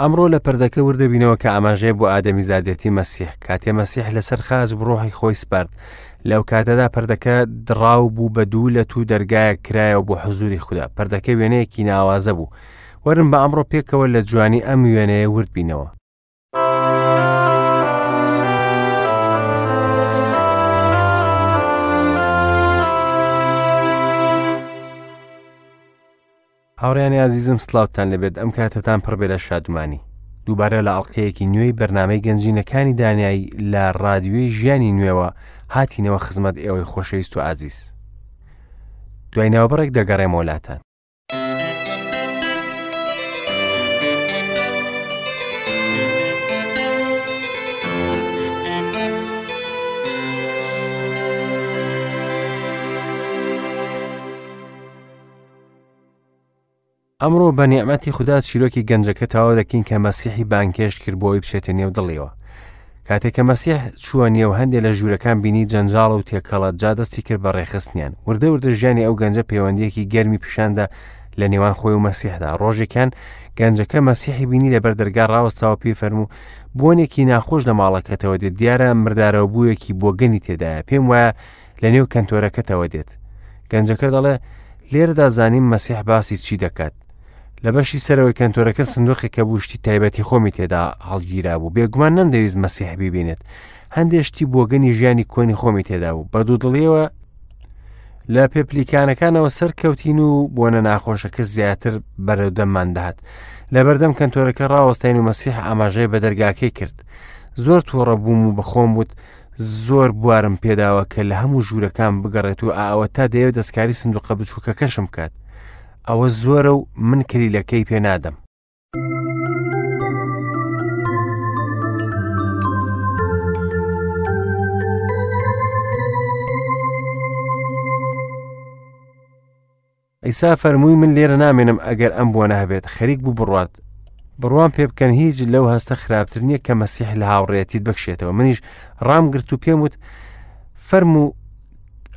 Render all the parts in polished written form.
ئەمڕۆ لە پردەکە وردەبینەوە کە ئاماژەیە بۆ ئادەمیزادێتی مەسیح. کاتێ مەسیح لەسەر خاچ ڕۆحی خۆی سپارد، لەو کاتەدا پردەکە دڕاو بوو بە دوو لەت و دەرگایەک کرایەوە بۆ حزوری خودا. پردەکە وێنەیەکی ناوازە بوو. وەرن بە ئەمڕۆ پێکەوە لە جوانی ئەم وێنەیە ورد بینەوە. هاوڕێیانی ئازیزم سڵاوتان لێبێت ئەم کاتەتان پڕ بێ لە شادومانی دووبارە لە ئەڵلقەیەکی نوێی بەرنمەی گەنجینەکانی دانایی لە ڕادیوی ژیانی نوێوە هاتینەوە خزمەت ئێوەی خۆشەویست و ئازیز دوای ناوبڕێک دەگەڕێمەوە لاتان. ئەمڕۆ بە نیعمەتی خودا چیرۆکی گەنجەکە تەواو دەکەین کە مەسیحی بانگهێشت کرد بۆ ئەوەی بچێتە نێو دڵیەوە. کاتێک کە مەسیح چووە نێو هەندێ لە ژوورەکان بینی جەنجاڵ و تێکەڵە جا دەستی کرد بە ڕێکخستنیان. وردە وردە ژیانی ئەو گەنجە پەیوەندیەکی گەرمی پیشاندا لە نێوان خۆی و مەسیحدا. ڕۆژێکیان گەنجەکە مەسیحی بینی لەبەر دەرگا ڕاوەستاوە پێی فەرموو بۆنێکی ناخۆش لە ماڵەکەتەوە دێت دیارە مردارەوە بوویەکی بۆگەنی تێدایە پێم وایە لە نێو کەنتۆرەکەتەوە دێت. گەنجەکە دەڵێ، لێرەدا زانیم مەسیح باسی چی دەکات. لە بەشی سەرەوەی کەنتۆرەکە سندوقێک هەبوو شتی تایبەتی خۆمی تێدا هەڵگیرابوو. بێگومان نەمدەویست مەسیح بیبینێت. هەندێ شتی بۆگەنی ژیانی کۆنی خۆمی تێدا بوو. بە دوودڵیەوە لە پێپلیکانەکانەوە سەرکەوتین و بۆنە ناخۆشەکە زیاتر بەرەو دەممان دەهات. لە بەردەم کەنتۆرەکە ڕاوەستاین و مەسیح ئاماژەی بە دەرگاکەی کرد. زۆر تووڕە بووم و بەخۆم وت زۆر بوارم پێداوە کە لە هەموو ژوورەکان بگەڕێت و ئاوە تا دەیەوێت دەستکاری سندوقە بچووکەکەشم بکات ئەوە زۆرە و من کلیلەکەی پێ نادەم. عیسا فەرمووی من لێرە نامێنم ئەگەر ئەم بۆنە هەبێت خەریک بوو بڕوات بڕوام پێ بکەن هیچ لەو هەستە خراپتر نییە کە مەسیح لە هاوڕێتیت بکشێتەوە منیش ڕام گرت و پێم وت فەرموو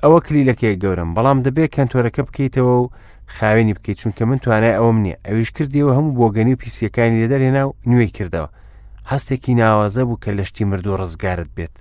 ئەوە کلیلەکەی گەورم بەڵام دەبێت کەنتۆرەکە بکەیتەوە و خاوێنی بکەیت چونکە من توانای ئەوم نییە ئەویش کردیەوە هەموو بۆگەنی و پیسیەکانی لێ دەرهێنا و نوێی کردەوە هەستێکی ناوازە بوو کە لە شتی مردوو ڕزگارت بێت.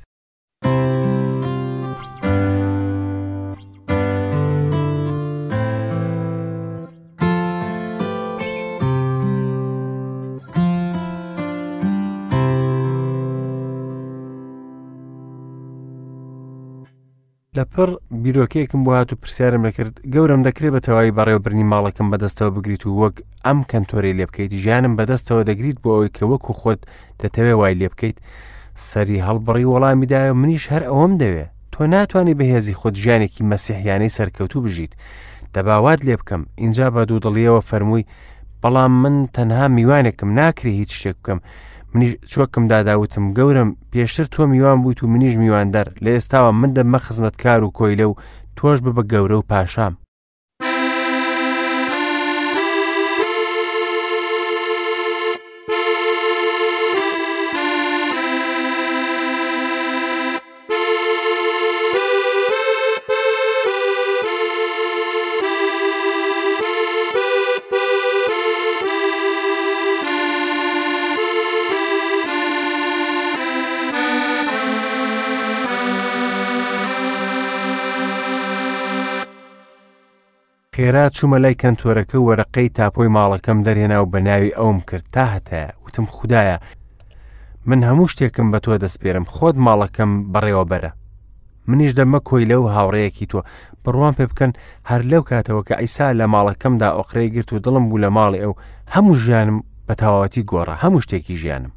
لەپڕ بیرۆکەیەکم بۆ هات و پرسیارم لەکرد گەورەم دەکرێت بە تەواوی بەڕێوەبردنی ماڵەکەم بەدەستەوە بگریت و وەک ئەم کەنتۆرەی لێ بکەیت ژیانم بەدەستەوە دەگریت بۆ ئەوەی کە وەکو خۆت دەتەوێ وای لێ بکەیت سەری هەڵبڕی وەڵامی دایە منیش هەر ئەوەم دەوێ تۆ ناتوانانی بەهێزی خۆت ژیانێکی مەسیحیانەی سەرکەوتوو بژیت دەباوات لێ بکەم اینجا بە دوودڵیەوە فەرمووی بەڵام من تەنها میوانێکم ناکرێ هیچ شتێک بکەم منیش چۆکم دادا وتم گەورم پێشتر تۆ میوان بوویت و منیش میواندار لە ئێستاوە من دەبمە خزمەتکار و کۆیلە و تۆش ببە گەورە و پاشام. خێرا چوومە لای کەنتۆرەکە و وەرەقەی تاپۆی ماڵەکەم دەرهێنا و بە ناوی ئەوم کرد تا هەتایە وتم خودایە من هەموو شتێکم بە تۆ دەسپێرم خۆت ماڵەکەم بەڕێوەبەرە منیش دەبمە کۆیلە و هاوڕێیەکی تۆ. بڕوام پێ بکەن، هەر لەو کاتەوە کە عیسا لە ماڵەکەمدا ئۆقرەی گرت و دڵم بوو لە ماڵی ئەو، هەموو ژیانم بە تەواوەتی گۆڕا، هەموو شتێکی ژیانم.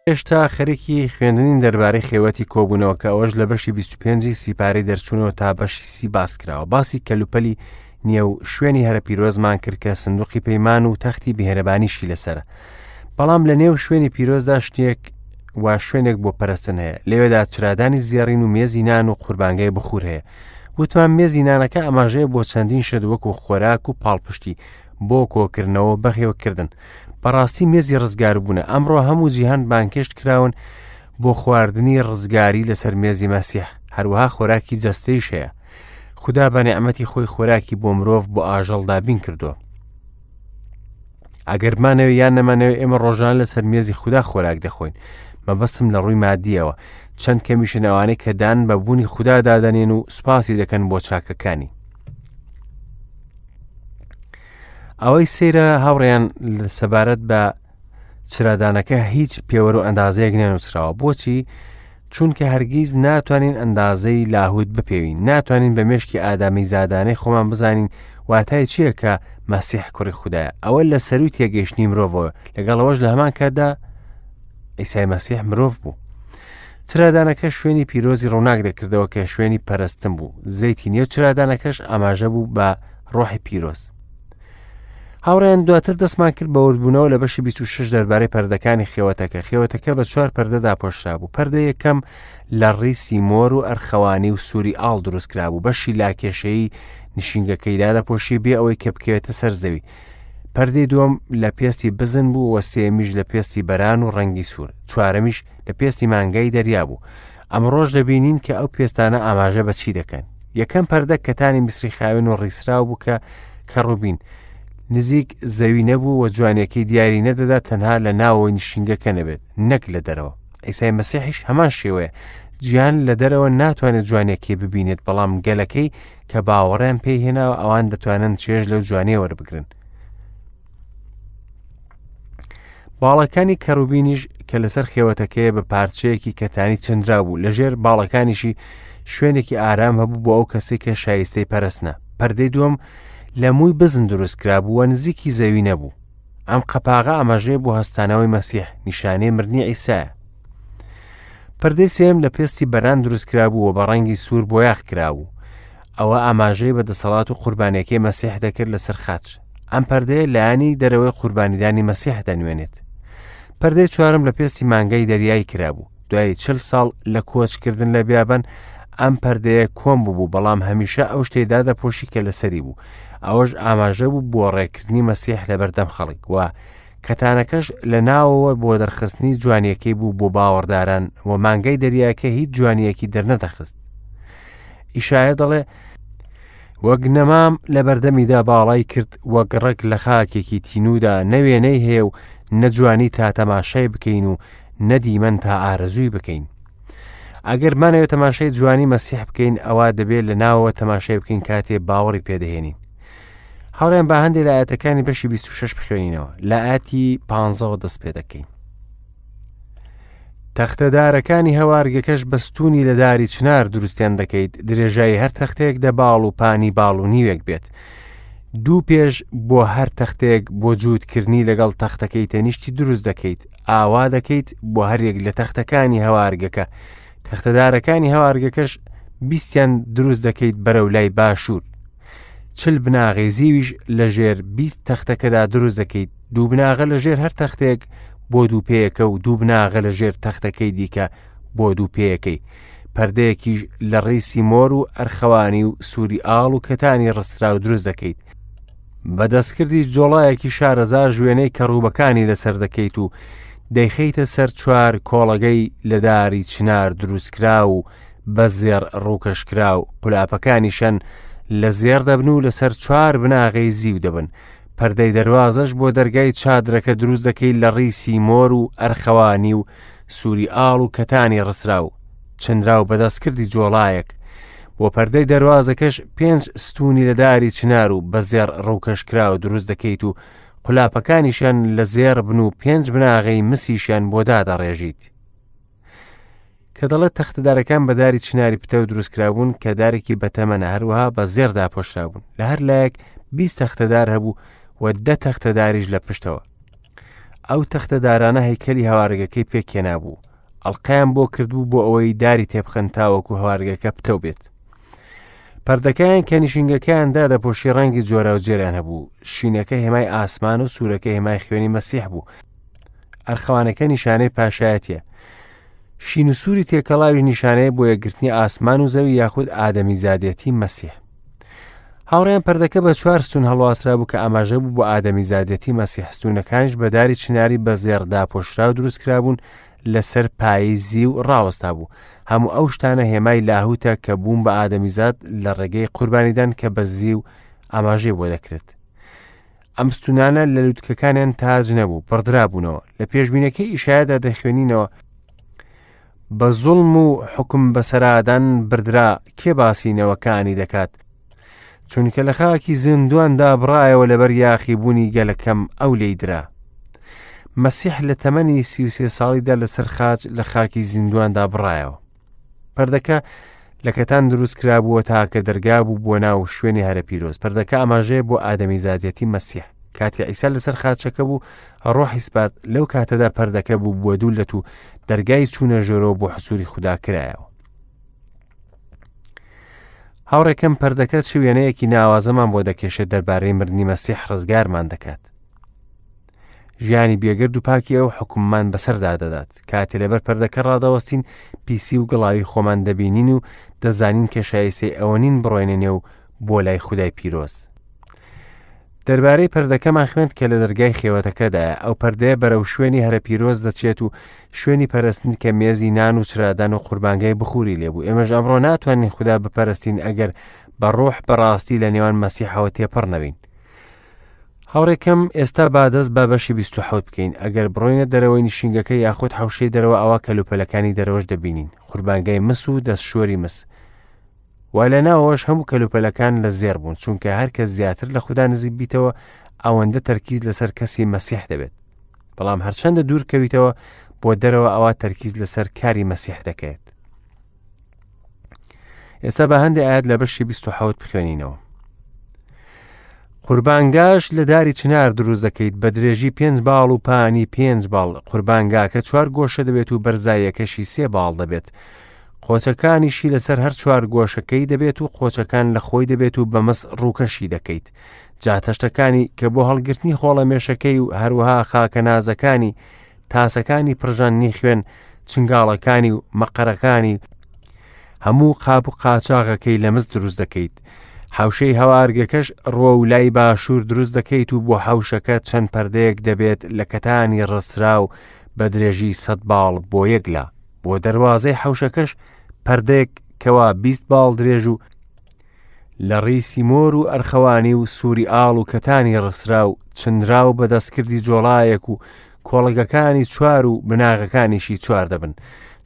هێشتا خەریکی خوێندنین دەربارەی خێوەتی کۆبوونەوە کە ئەوەش لە بەشی 25 سیپارەی دەرچوونەوە تا بەشی سی باس کراوە باسی کەلوپەلی نێو شوێنی هەرە پیرۆزمان کرد کە سندوقی پەیمان و تەختی بهێرەبانیشی لەسرە بەڵام لە نێو شوێنی پیرۆزدا شتێک وا شوێنێک بۆ پەرستن هەیە لەوێدا چرادانی زێڕین و مێزی نان و قوربانگای بخور هەیە وتمان مێزی نانەکە ئاماژەیە بۆ چەندین شت وەکو خۆراک و پاڵپشتی بۆ کۆکردنەوە و بەخێوکردن. بەڕاستی مێزی ڕزگاربوونە. ئەمڕۆ هەموو جیهان بانگهێشت کراون بۆ خواردنی ڕزگاری لەسەر مێزی مەسیح. هەروەها خۆراکی جەستەیش هەیە. خودا بە نیعمەتی خۆی خۆراکی بۆ مرۆڤ بۆ ئاژەڵ دابین کردووە. ئەگەر بمانەوێ یان نەمانەوێ ئێمە ڕۆژان لەسەر مێزی خودا خۆراک دەخۆین. مەبەستم لە ڕووی مادیەوە چەند کەمیشن ئەوانەی کە دان بە بوونی خودا دادەنێن و سوپاسی دەکەن بۆ چاکەکانی. ئەوەی سەیرە هاوڕێیان سەبارەت بە چرادانەکە هیچ پێوەر و ئەندازەیەک نەنووسراوە بۆچی چونکە هەرگیز ناتوانین ئەندازەی لاهوت بپێوین ناتوانین بە مێشکی ئادامی زادانەی خۆمان بزانین واتای چییە کە مەسیح کوڕی خودایە ئەوە لە سەروی تێگەیشتنی مرۆڤەوە لەگەڵەوەش لە هەمان کاتدا ئیسای مەسیح مرۆڤ بوو چرادانەکە شوێنی پیرۆزی ڕووناک دەکردەوە کە شوێنی پەرستن بوو زەیتی نێو چرادانەکەش ئاماژە بوو بە ڕۆحی پیرۆز هاوڕێیان دواتر دەستمان کرد بە وردبوونەوە لە بەشی 26 دەربارەی پەردەکانی خێوەتەکە خێوەتەکە بە چوار پەردە داپۆشرابوو پەردە یەکەم لە ڕیسی مۆر و ئەرخەوانی و سووری ئاڵ دروست کرابوو بەشی لاکێشەیی نشینگەکەی دادەپۆشی بێ ئەوەی کە بکەوێتە سەر زەوی پەردەی دووەم لە پێستی بزن بوو و سێمیش لە پێستی بەران و ڕەنگی سوور چوارەمیش لە پێستی مانگای دەریا بوو ئەمڕۆش دەبینین کە ئەو پێستانە ئاماژە بە چی دەکەن یەکەم پەردە کەتانی میسری خاوێن و ڕیسراو بوو کە کەڕوبین نزیک زەوی نەبوو و جوانیەکەی دیاری نەدەدا تەنها لە ناوەوەی نشینگەکە نەبێت نەک لە دەرەوە ئیسای مەسیحیش هەمان شێوەیە جیان لە دەرەوە ناتوانێت جوانیەکەی ببینێت بەڵام گەلەکەی کە باوەڕیان پێی هێناوە ئەوان دەتوانن چێژ لەو جوانیە وەربگرن باڵەکانی کەڕوبینیش کە لەسەر خێوەتەکەیە بە پارچەیەکی کەتانی چنرا بوو لەژێر باڵەکانیشی شوێنێکی ئارام هەبوو بۆ ئەو کەسێک کە شایستەی پەرستنە پەردەی دووەم لە مووی بزن دروست کرابوو و نزیکی زەوی نەبوو ئەم قەپاغە ئاماژەیە بۆ هەستانەوەی مەسیح نیشانەی مردنی عیسایە پردەی سێم لە پێستی بەران دروست کرابوو و بە ڕەنگی سوور بۆیاخ کرابوو ئەوە ئاماژەی بە دەسەڵات و قوربانیەکەی مەسیح دەکرد لەسەر خاچ ئەم پەردەیە لایەنی دەرەوەی قوربانیدانی مەسیح دەنوێنێت پەردەی چوارم لە پێستی مانگای دەریایی کرابوو دوای چل ساڵ لە کۆچکردن لە بیابان ئەم پەردەیە کۆم بوو بەڵام هەمیشە ئەو شتەی دادەپۆشی کە لەسەری بوو ئەوەش ئاماژە بوو بۆ ڕێکردنی مەسیح لە بەردەم خەڵک و کەتانەکەش لە ناوەوە بۆ دەرخستنی جوانیەکەی بوو بۆ باوەڕداران و مانگای دەریاکە هیچ جوانیەکی دەرنەدەخست ئیشایە دەڵێ وەک نەمام لە بەردەمیدا باڵای کرد وەک ڕەگ لە خاکێکی تینوودا نە وێنەی هەیە و نە جوانی تا تەماشای بکەین و نە دیمەن تا ئارەزووی بکەین ئەگەر مانەوێت تەماشای جوانی مەسیح بکەین ئەوە دەبێت لە ناوەوە تەماشای بکەین کاتێ باوەڕی پێدەهێنین هاوڕێیان با هەندێک لە ئاەتەکانی بەشی 26 بخوێنینەوە لە ئاەتی پانزەوە دەست پێ دەکەین تەختەدارەکانی هەوارگەکەش بە ستوونی لە داری چنار دروستیان دەکەیت درێژایی هەر تەختەیەک دە باڵ و پانی باڵ و نیوێک بێت دوو پێش بۆ هەر تەختەیەک بۆ جووتکردنی لەگەڵ تەختەکەی تەنیشتی دروست دەکەیت ئاوا دەکەیت بۆ هەریەک لە تەختەکانی هەوارگەکە تەختەدارەکانی هەوارگەکەش بیستیان دروست دەکەیت بەرەو لای باشوور چل بناغەی زیویش لە ژێر 20 تەختەکەدا دروست دەکەیت دوو بناغە لە ژێر هەر تەختێک بۆ دوو پێیەکە و دوو بناغە لە ژێر تەختەکەی دیکە بۆ دوو پێیەکەی پەردەیەکیش لە ڕیسی مۆر و ئەرخەوانی و سووری ئاڵ و کەتانی ڕستراو دروست دەکەیت بە دەستکردی جۆڵایەکی شارەزا ژوێنەی کەڕوبەکانی لەسەر دەکەیت و دەیخەیتە سەر چوار کۆڵەگەی لە داری چنار دروستکراو و بە زێڕ ڕووکەشکراو، قولاپەکانیشیان لە زێڕ دەبن و لەسەر چوار بناغەی زیو دەبن. پەردەی دەروازەش بۆ دەرگای چادرەکە دروست دەکەی لە ڕیسی مۆر و ئەرخەوانی و سووری ئاڵ و کەتانی ڕسراو، چنراو بە دەستکردی جۆڵایەک. بۆ پەردەی دەروازەکەش پێنج ستوونی لە داری چنار و بە زێڕ ڕووکەشکراو دروست دەکەیت و قولاپەکانیشیان لە زێڕ بن و پێنج بناغەی مسیشیان بۆ دادەڕێژیت. کە دەڵێت تەختەدارەکان بە داری چناری پتەو دروستکرابوون کە دارێکی بەتەمەنە هەروەها بە زێڕ داپۆشرابوون لە هەر لایەک 20 تەختەدار هەبوو و دە تەختەداریش لە پشتەوە ئەو تەختەدارانە هەیکەلی هەوارگەکەی پێکهێنابوو ئەڵلقەیان بۆ کردبوو بۆ ئەوەی داری تێبخەن تاوەکو هەوارگەکە پتەو بێت پەردەکەیان کە نشینگەکەیان دادەپۆشی ڕەنگی جۆراوجێریان هەبوو شینەکە هێمای ئاسمان و سوورەکە هێمای خوێنی مەسیح بوو ئەرخەوانەکە نیشانەی پاشایەتیە. شین و سووری تێکەڵاویش نیشانەیە بۆ یەکگرتنی ئاسمان و زەوی یاخود ئادەمیزادێتی مەسیح. هاوڕێیان پەردەکە بە چوار ستون هەڵواسرابوو کە ئاماژە بوو بۆ ئادەمیزادێتی مەسیح، ستونەکانیش بە داری چناری بە زێڕ داپۆشراو دروست کرابوون لەسەر پایەی زیو ڕاوەستا بوو. هەموو ئەو شتانە هێمای لاهوتە کە بوون بە ئادەمیزاد لە ڕێگەی قوربانیدان کە بە زیو ئاماژەی بۆ دەکرێت. ئەم ستونانە لە لوتکەکانیان تاج نەبوو، بڕدرابوونەوە. لە پێشبینەکەی ئیشایادا دەخوێنینەوە، بە زوڵم و حوکم بەسەرادان بردرا، کێ باسی نەوەکانی دەکات؟ چونکە لە خاکی زیندوواندا بڕایەوە لەبەر یاخیبوونی گەلەکەم ئەو لێی درا. مەسیح لە تەمەنی 33 ساڵیدا لەسەر خاچ لە خاکی زیندوواندا بڕایەوە. پەردەکە لە کەتان دروست کرابووە تاکە دەرگا بوو بۆ ناو شوێنی هەرە پیرۆز. پەردەکە ئاماژەیە بۆ ئادەمیزادیەتی مەسیح. کاتێ عیسا لەسەر خاچەکە بوو ڕۆحی سپارد، لەو کاتەدا پەردەکە بوو بۆ دوو لەت و دەرگای چوونە ژۆرەوە بۆ حسووری خودا کرایەوە. هاوڕێکەم پەردەکە چ وێنەیەکی ناوازەمان بۆ دەکێشێت دەربارەی مردنی مەسیح ڕزگارمان دەکات. ژیانی بێگەرد و پاکی ئەو حکوممان بەسەردا دەدات. کاتێ لەبەر پەردەکە ڕادەوەستین پیسی و گڵاوی خۆمان دەبینین و دەزانین کە شایستەی ئەوە نین بڕۆینە نێو بۆ لای خودای پیرۆز. دەربارەی پەردەکەمان خوێند کە لە دەرگای خێوەتەکەدایە. ئەو پەردەیە بەرەو شوێنی هەرە پیرۆز دەچێت و شوێنی پەرستن کە مێزی نان و چرادان و قوربانگای بخوری لێبوو. ئێمەش ئەمڕۆ ناتوانین خودا بپەرستین ئەگەر بە ڕۆح بەڕاستی لە نێوان مەسیحەوە تێپەڕ نەبین. هاوڕێکەم ئێستا با دەست بە بەشی 27 بکەین. ئەگەر بڕۆینە دەرەوەی نشینگەکە یاخود حەوشەی دەرەوە ئەوا کەلوپەلەکانی دەرەوەش دەبینین. قوربانگای مس و دەستشۆری مس. و لە ناوەوەش هەموو کەلوپەلەکان لە زێڕ بوون، چونکە هەر کەس زیاتر لە خودا نزیک بیتەوە ئەوەندە تەرکیز لەسەر کەسی مەسیح دەبێت. بەڵام هەرچەندە دوور کەویتەوە بۆ دەرەوە ئەوا تەرکیز لەسەر کاری مەسیح دەکەێت. ئێستا بە هەندێک ئاەت لە بەشی 27 بخوێنینەوە. قوربانگاش لە داری چنار دروست دەکەیت بە درێژی پێنج باڵ و پانی پێنج باڵ قوربانگاکە چوار گۆشە دەبێت و بەرزاییەکەشی سێ باڵ دەبێت قۆچەکانیشی لەسەر هەر چوار گۆشەکەی دەبێت و قۆچەکان لە خۆی دەبێت و بە مس ڕووکەشی دەکەیت جا تەشتەکانی کە بۆ هەڵگرتنی خۆڵەمێشەکەی و هەروەها خاکەنازەکانی تاسەکانی پڕژاندنی خوێن چنگاڵەکانی و مەقەرەکانی هەموو قاپ و قاچاغەکەی لە مس دروست دەکەیت حوشەی هەوارگەکەش ڕووە و لای باشوور دروست دەکەیت و بۆ حوشەکە چەند پەردەیەک دەبێت لە کەتانی ڕستراو بە درێژی سەد باڵ بۆ یەک لا بۆ دەروازەی حەوشەکەش پەردەیەک کەوا 20 باڵ درێژ و لە ڕیسی مۆر و ئەرخەوانی و سووری ئاڵ و کەتانی ڕسرا و چنراو بە دەستکردی جۆڵایەک و کۆڵگەکانی چوار و بناغەکانیشی چوار دەبن.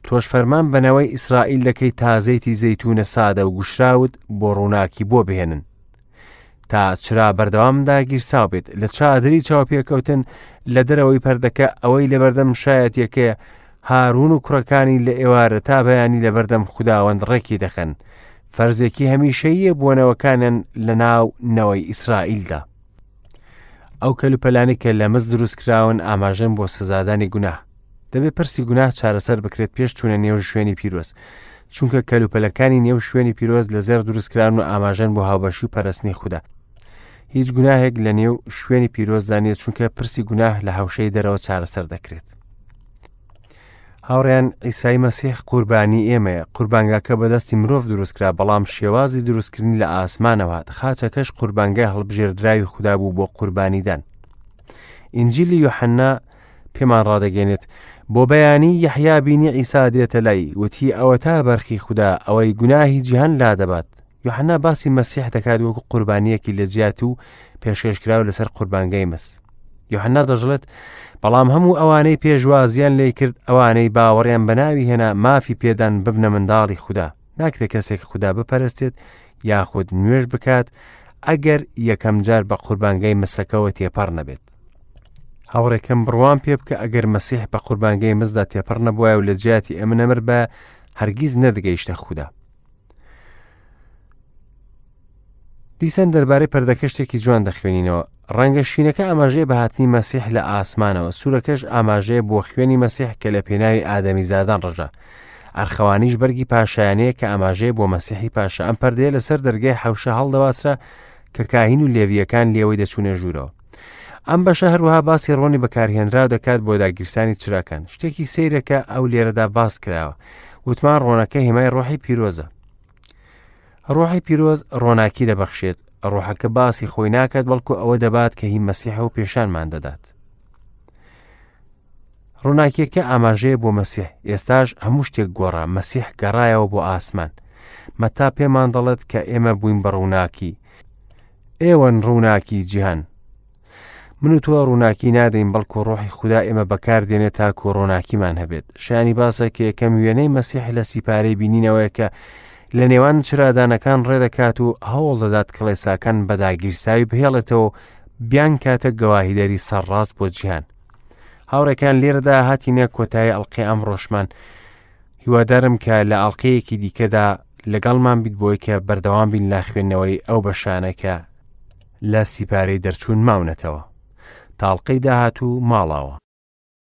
تۆش فەرمان بە نەوەی ئیسرائیل دەکەی تا زەیتی زەیتوونە سادە و گوشراوت بۆ ڕووناکی بۆ بهێنن. تا چرا بەردەوام داگیرساو بێت لە چادری چاوپێکەوتن لە دەرەوەی پەردەکە ئەوەی لەبەردەم شایەتیەکەیە هارون و کوڕەکانی لە ئێوارە تا بەیانی لەبەردەم خوداوەند ڕێکی دەخەن فەرزێکی هەمیشەییە بۆ نەوەکانیان لە ناو نەوەی ئیسرائیلدا ئەو کەلوپەلانی کە لە مس دروست کراون ئاماژەن بۆ سزادانی گوناه دەبێت پرسی گوناه چارەسەر بکرێت پێش چوونە نێو شوێنی پیرۆز چونکە کەلوپەلەکانی نێو شوێنی پیرۆز لە زێڕ دروستکراون و ئاماژەن بۆ هاوبەشی و پەرستنی خودا هیچ گوناهێک لە نێو شوێنی پیرۆزدا نییە چونکە پرسی گوناه لە هەوشەی دەرەوە چارەسەر دەکرێت هاوڕێیان عیسای مەسیح قوربانی ئێمەیە قوربانگاکە بەدەستی مرۆڤ دروستکرا بەڵام شێوازی دروستکردنی لە ئاسمانەوە هات خاچەکەش قوربانگای هەڵبژێردراوی خودا بوو بۆ قوربانیدان ئینجیلی یۆحەنا پێمان ڕادەگەێنێت بۆ بەیانی یەحیا بینی عیسا دێتە لای وتی ئەوەتا بەرخی خودا ئەوەی گوناهی جیهان لادەبات یۆحەنا باسی مەسیح دەکات وەکو قوربانیەکی لە جیات و پێشکەشکراو لەسەر قوربانگای مس یۆحەنا دەژڵێت بەڵام هەموو ئەوانەی پێشوازیان لێ کرد ئەوانەی باوەڕیان بە ناوی هێنا مافی پێدان ببنە منداڵی خودا ناکرێت کەسێک خودا بپەرستێت یاخود نوێژ بکات ئەگەر یەکەم جار بە قوربانگای مسەکەوە تێپەڕ نەبێت هاوڕێکەم بڕوام پێ بکە ئەگەر مەسیح بە قوربانگای مزدا تێپەڕ نەبوایە و لە جیاتی ئەمە نەمر بە هەرگیز نەدەگەیشتە خودا دیسان دەربارەی پەردەکە شتێکی جوان دەخوێنینەوە ڕەنگە شینەکە ئاماژەیە بە هاتنی مەسیح لە ئاسمانەوە سوورەکەش ئاماژەیە بۆ خوێنی مەسیح کە لە پێناوی ئادەمیزادان ڕژا ئەرخەوانیش بەرگی پاشایانەیە کە ئاماژەیە بۆ مەسیحی پاشا ئەم پەردەیە لەسەر دەرگای حەوشە هەڵدەواسرا کە کاهین و لێویەکان لێوەی دەچوونە ژوورەوە. ئەم بەشە هەروەها باسی ڕۆنی بەکارهێنراو دەکات بۆ داگیرسانی چراکان. شتێکی سەیرە کە ئەو لێرەدا باس کراوە. وتمان ڕۆنەکە هێمای ڕۆحی پیرۆزە. ڕۆحی پیرۆز ڕۆناکی دەبەخشێت. ڕۆحەکە باسی خۆی ناکات بەڵکو ئەوە دەبات کە هی مەسیحە و پێشانمان دەدات. ڕووناکیەکە ئاماژەیە بۆ مەسیح ئێستاش هەموو شتێک گۆڕا مەسیح گەڕایەوە بۆ ئاسمان مەتا پێمان دەڵێت کە ئێمە بووین بە ڕووناکی ئێوەن ڕووناکی جیهان من و تۆ ڕووناکی نادەین بەڵکو ڕۆحی خودا ئێمە بەکاردێنێت تاکو ڕووناکیمان هەبێت شایانی باسە کە یەکەم وێنەی مەسیح لە سیپارەی بینینەوەیە کە لە نێوان چرادانەکان ڕێدەکات و هەوڵ دەدات کڵێساکان بە داگیرساوی بهێڵێتەوە و بیانکاتە گەواهیدەری سەرڕاست بۆ جیهان هاوڕێکان لێرەدا هاتینە کۆتایی ئەڵلقەی ئەمڕۆشمان هیوادارم کە لە ئەڵلقەیەکی دیکەدا لەگەڵمان بیت بۆی کە بەردەوام بین لە خوێندنەوەی ئەو بەشانە کە لە سیپارەی دەرچوون ماونەتەوە تاڵقەی داهاتوو ماڵاوە.